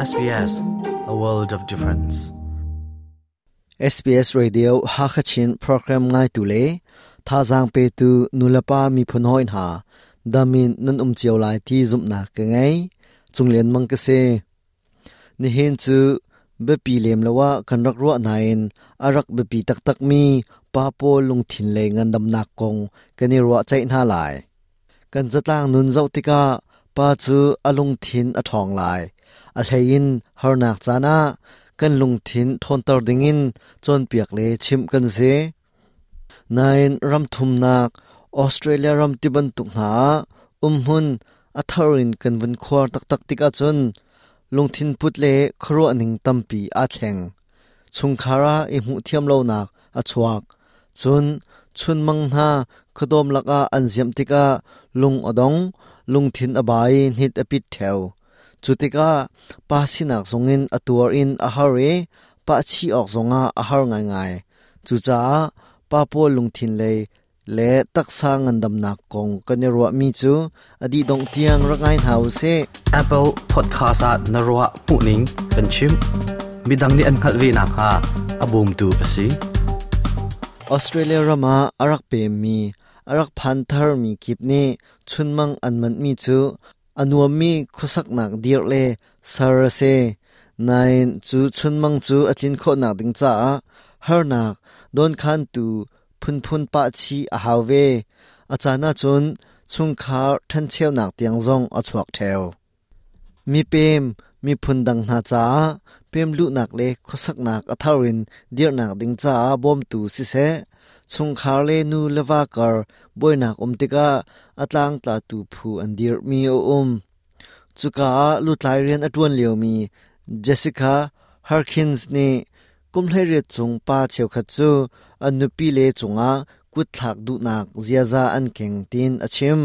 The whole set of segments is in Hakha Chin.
SBS, a world of difference. SBS Radio Hakachin program ngaitu le thazaang petu nulepa miphun hawi hna damin nan um cio lai ti zumhnak ka ngei. Cunglian mang ka si. Nihin cu biapi lem lo ah kan rak ruah nain a rak biapi taktakmi pa pawl lungthin lei ngandamnak kong kan i ruahceih hna lai. Kan zatlang nun zoh tikah pa cu a lungthin a ṭhawng lai. A hleiin harnak caan ah kan lungthin ṭhawnter dingin cawnpiak le chimh kan si. Nain ram thumnak Australia ram ti bantuk hna ah umhmun a thar in kan vun khuar taktak tik ahcun lungthin put le khuaruah ning tampi aa thleng. Chungkhar ah i hmuh thiam lonak a chuak. Cun chunmang hna khuadawm lakah an ziamh tikah lung a dong, lungthin a ba i hnit a pit ṭheo. Cu tikah pa sinak zongin a tuar in a har i pahchih awk zongah a har ngaingai. Cucaah pa pawl lungthin lei le taksa ngandamnak kong kan i ruahmi cu a dih dongh tiang rak ngai hna u sih. Apple Podcast ah na ruah hmuhning kan chim. Midang nih an hngalh ve nakhnga a bawmtu a si. Australia ram ah a rak pemmi, a rak phan tharmi kip nih chunmang an manhmi cu a nuammi khuasaknak dirh le ser a si. Nain cu chunmang cu a tlin khawhnak ding caah harnak dawnkhantu phunphun pah chih a hau ve. A caan ahcun chungkhar ṭhencheunak tiang zong a chuak ṭheo. Mipem, miphun dang hna caah pemluhnak le khuasaknak a thar in dirhnak ding caah bawmtu siseh, chungkhar le nu le va kar buainak um tikah a tlangtlatu phu an dirhmi a um. Cuka ah lutlai rian a ṭuan liomi Jessica Harkins nih kum 18 chung pa cheukhat cu an nupile cungah kutthlak duhnak ziaza an keng tiin a chim.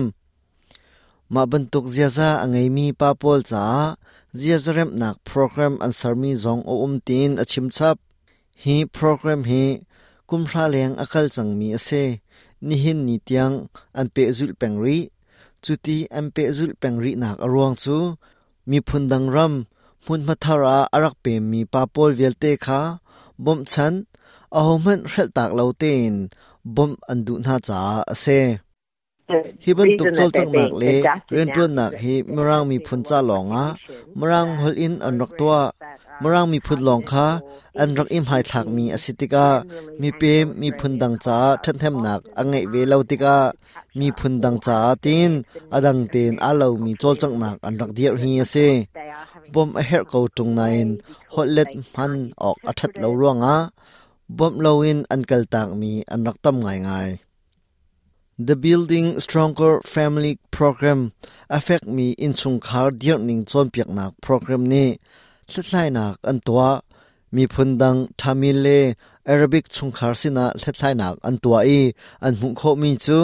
Mah bantuk ziaza a ngeimi pa pawl caah ziaza remhnak program an sermi zong a um tiin a chim chap. Hi program hi kumhra leng a kal cangmi a si. Nihin ni tiang an pehzulh peng rih. Cuti an pehzulh peng rihnak a ruang cu miphun dang ram hmunhma thar ah a rak pemmi pa pawl vialte kha bawmhchanh, ahohmanh hrelhtak lo tein bawmh an duh hna caah a si. Hi bantuk cawlcanghnak le rianṭuannak hi Mirang miphun ca lawngah Mirang holh in an rak tuah. Mirang miphun lawng kha an rak i hmaithlakmi a si tikah mipem miphun dang caah ṭhathnemnak a ngeih ve lo tikah miphun dang caah tiin a dang tein aa lomi cawlcanghnak an rak dirh hi a si. Bawmh a herh ko ṭung nain holhlet hman awk a ṭhat lo ruangah bawmh loin an kaltakmi an rak tam ngaingai. The Building Stronger Family Program a fekmi innchungkhar dirhning cawnpiaknak program nih hlathlainak an tuah. Miphun dang Tamil le Arabic chungkhar sinah hlathlainak an tuah i an hmuh khawhmi cu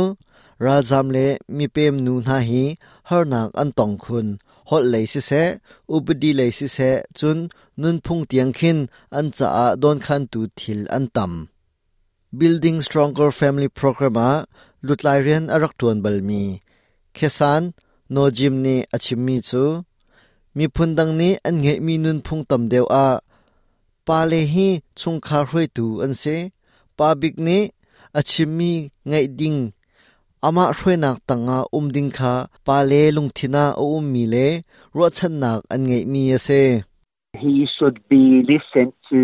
ralzam le mipem nu hna hi harnak an tong khun. Holh lei siseh, upadi lei siseh, cun nunphung tiang khin an caah dawnkhantu thil an tam. Building Stronger Family Program ah lutlai rian a rak ṭuan balmi Khesan Nojim nih a chimmi cu miphun dang nih an ngeihmi nunphung tam deuh ah pale hi chungkhar hruaitu an si. Pa bik nih a chimmi ngaih ding amah hruainak tangah um ding kha pale lungthin ah a ummi le ruahchannak an ngeihmi a si. He should be listened to,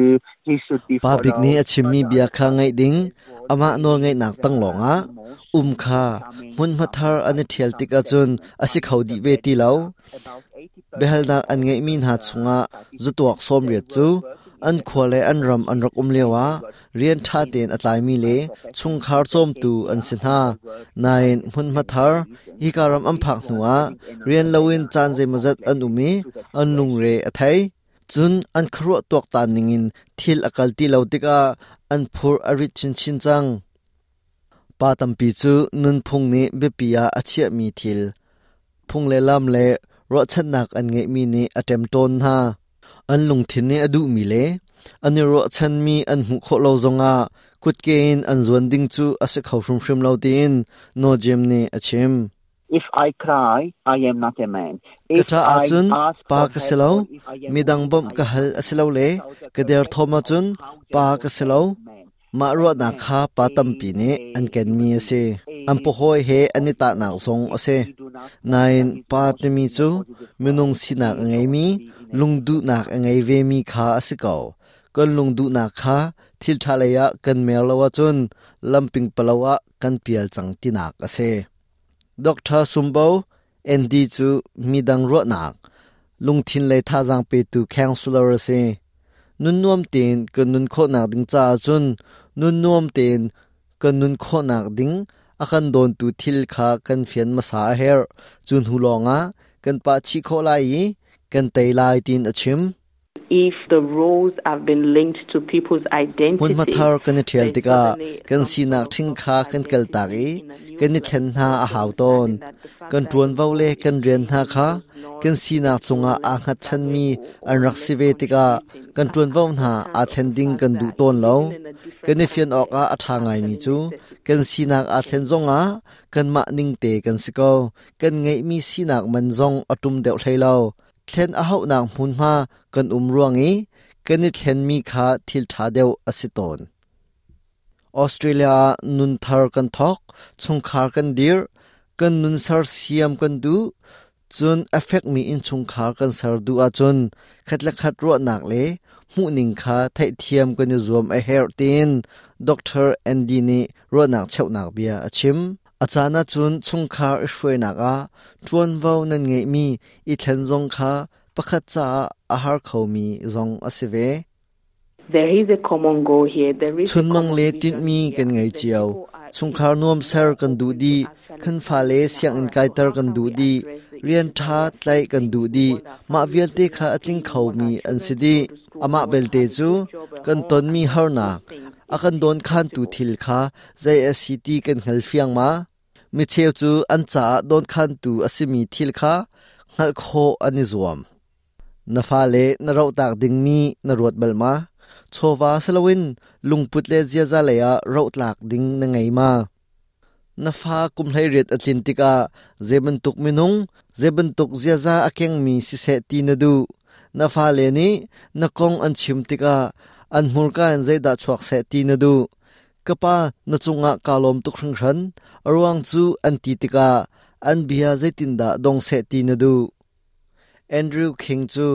he should be Pa bik nih a chimmi bia kha ngaih ding, amah nawlngeihnak tang lawngah um kha hmunhma thar an i ṭhial tik ahcun a si kho dih ve ti lo. Biahalnak an ngeihmi hna chungah zatuak 80 cu an khua le an ram an rak um lioah rian ṭha tein a tlaimi le chungkhar cawmtu an si hna. Nain hmunhma thar hika ram an phak hnuah rian loin caan zeimawzat an um i an lungre a thei. Cun an khuaruah tuaktan ningin thil a kal ti lo tikah an phur a rit chinchin cang. Pa tampi cu nunphung nih biapi ah a chiahmi thil, phung le lam le ruahchannak an ngeihmi nih a ṭemṭawn hna. An lungthin nih a duhmi le an i ruahchanmi an hmuh khawh lo zongah kutke in an zuan ding cu a si kho hrimhrim lo tiin Nojim nih a chim. If I cry, I am not a man. Ka ṭah ahcun pa ka si lo, midang bawmh ka hal a si lo le ka derthawm ahcun pa ka si lo. Mah ruahnak kha pa tampi nih an kenmi a si. An pahawi he an i tahnak zong a si. Nain pa timi cu minung sinak a ngeimi, lungduhnak a ngei vemi kha a si ko. Kan lungduhnak kha thil ṭha lei ah kan mer lo ahcun lamping palo ah kan pial cang tinak a si. Dr. Sumbo Andy cu midang ruahnak, lungthin lei thazaang petu counselor a si. Nun nuam tein kan nun khawhnak ding caah cun nun nuam tein kan nun khawhnak ding a kan dawntu thil kha kan fian hmasa a herh. Cu hnu lawngah kan pah chih khawh lai i kan tei lai tiin a chim. If the roles have been linked to people's identity, Hmunhma thar kan i ṭhial tikah kan sinak ṭhing kha kan kaltak i kan i thlen hna a hau tawn. Kan ṭuanvo le kan rian hna kha kan sinak cungah aa hngatchanmi an rak si ve tikah kan ṭuanvo hna aa thlen ding kan duh tawn lo. Kan i fian awkah a ṭha ngaimi cu kan sinak aa thlen zongah kanmah ningte kan si ko. Kan ngeihmi sinak man zong a ṭum deuh hlei lo. Thlen a hauhnak hmunhma kan um ruang i kan i thlenmi kha thil ṭha deuh a si tawn. Australia ah nun thar kan thawk, chungkhar kan dirh, kan nun sersiam kan duh, cun a fekmi innchungkhar kan ser duh ahcun khat le khat ruahnak le hmuhning kha theihthiam kan i zuam a herh tiin Dr. Andy nih ruahnak cheuhnak bia a chim. A caan ahcun chungkhar i hruainak ah ṭuanvo nan ngeihmi i thlen zong kha pakhat caah a har khomi zong a si ve. There is a common goal here. There is Chunmang le tinhmi kan ngei cio. Chungkhar nuam ser kan duh dih. Kan fale sianginn kaiter kan duh dih. Rian ṭha tlaih kan duh dih. Mah vialte kha a tling khomi an si dih. Amah belte cu kan tonmi harnak, a kan dawnkhantu thil kha zei a si ti kan hngal fiang ma? Micheu cu an caah dawnkhantu a simi thil kha hngalh khawh an i zuam. Na fale na rohtak dingmi na ruat bal ma? Chawva si loin lungput le ziaza lei ah rohtlak ding na ngei ma? Na fa kum 18 a tlin tikah zei bantuk minung, zei bantuk ziaza a kengmi siseh ti na duh. Na fale nih na kong an chim tikah an hmurka in zeidah chuak seh ti na duh. Ka pa, na cungah kaa lawm tuk hringhran. A ruang cu an ti tikah an bia zeitindah dong seh ti na duh. Andrew King cu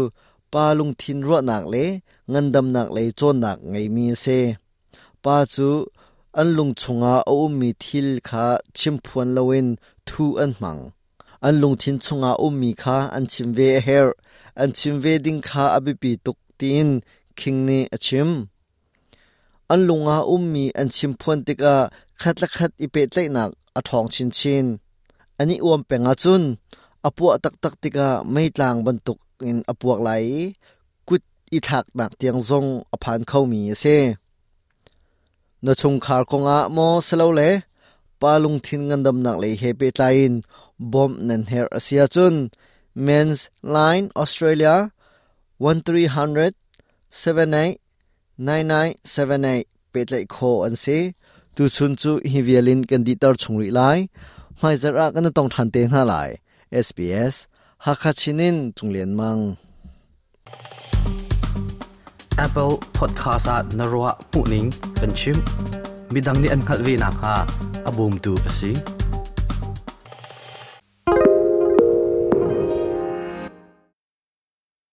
pa lungthin ruahnak le ngandamnak lei cawnnak ngeimi a si. Pa cu an lung chungah a ummi thil kha chimphuan loin thuh an hmang. An lungthin chungah ummi kha an chim ve a herh. An chim ve ding kha a biapi tuk tiin King nih a chim. An lung ah ummi an chimphuan tikah khat le khat i pehtlaihnak a ṭhawng chinchin. An i uam peng ahcun a puah taktak tikah meitlang bantuk in a puak lai i kut i thlaknak tiang zong a phan khomi a si. Na chungkhar kongah maw silole pa lungthin ngandamnak lei he pehtlai in bawmh nan herh a si ahcun Men's Line Australia 1300 78 9978 pehtlaih khawh an si. Tuchun cu hi vial in kan dihter chung rih lai. Hmaizarh ah kan i tong ṭhan te hna lai. SBS Hakha Chin in Cung Lian Mang. Apple Podcast ah na ruah hmuhning kan chim. Midang nih an hngalh ve nakhnga a bawmtu a si.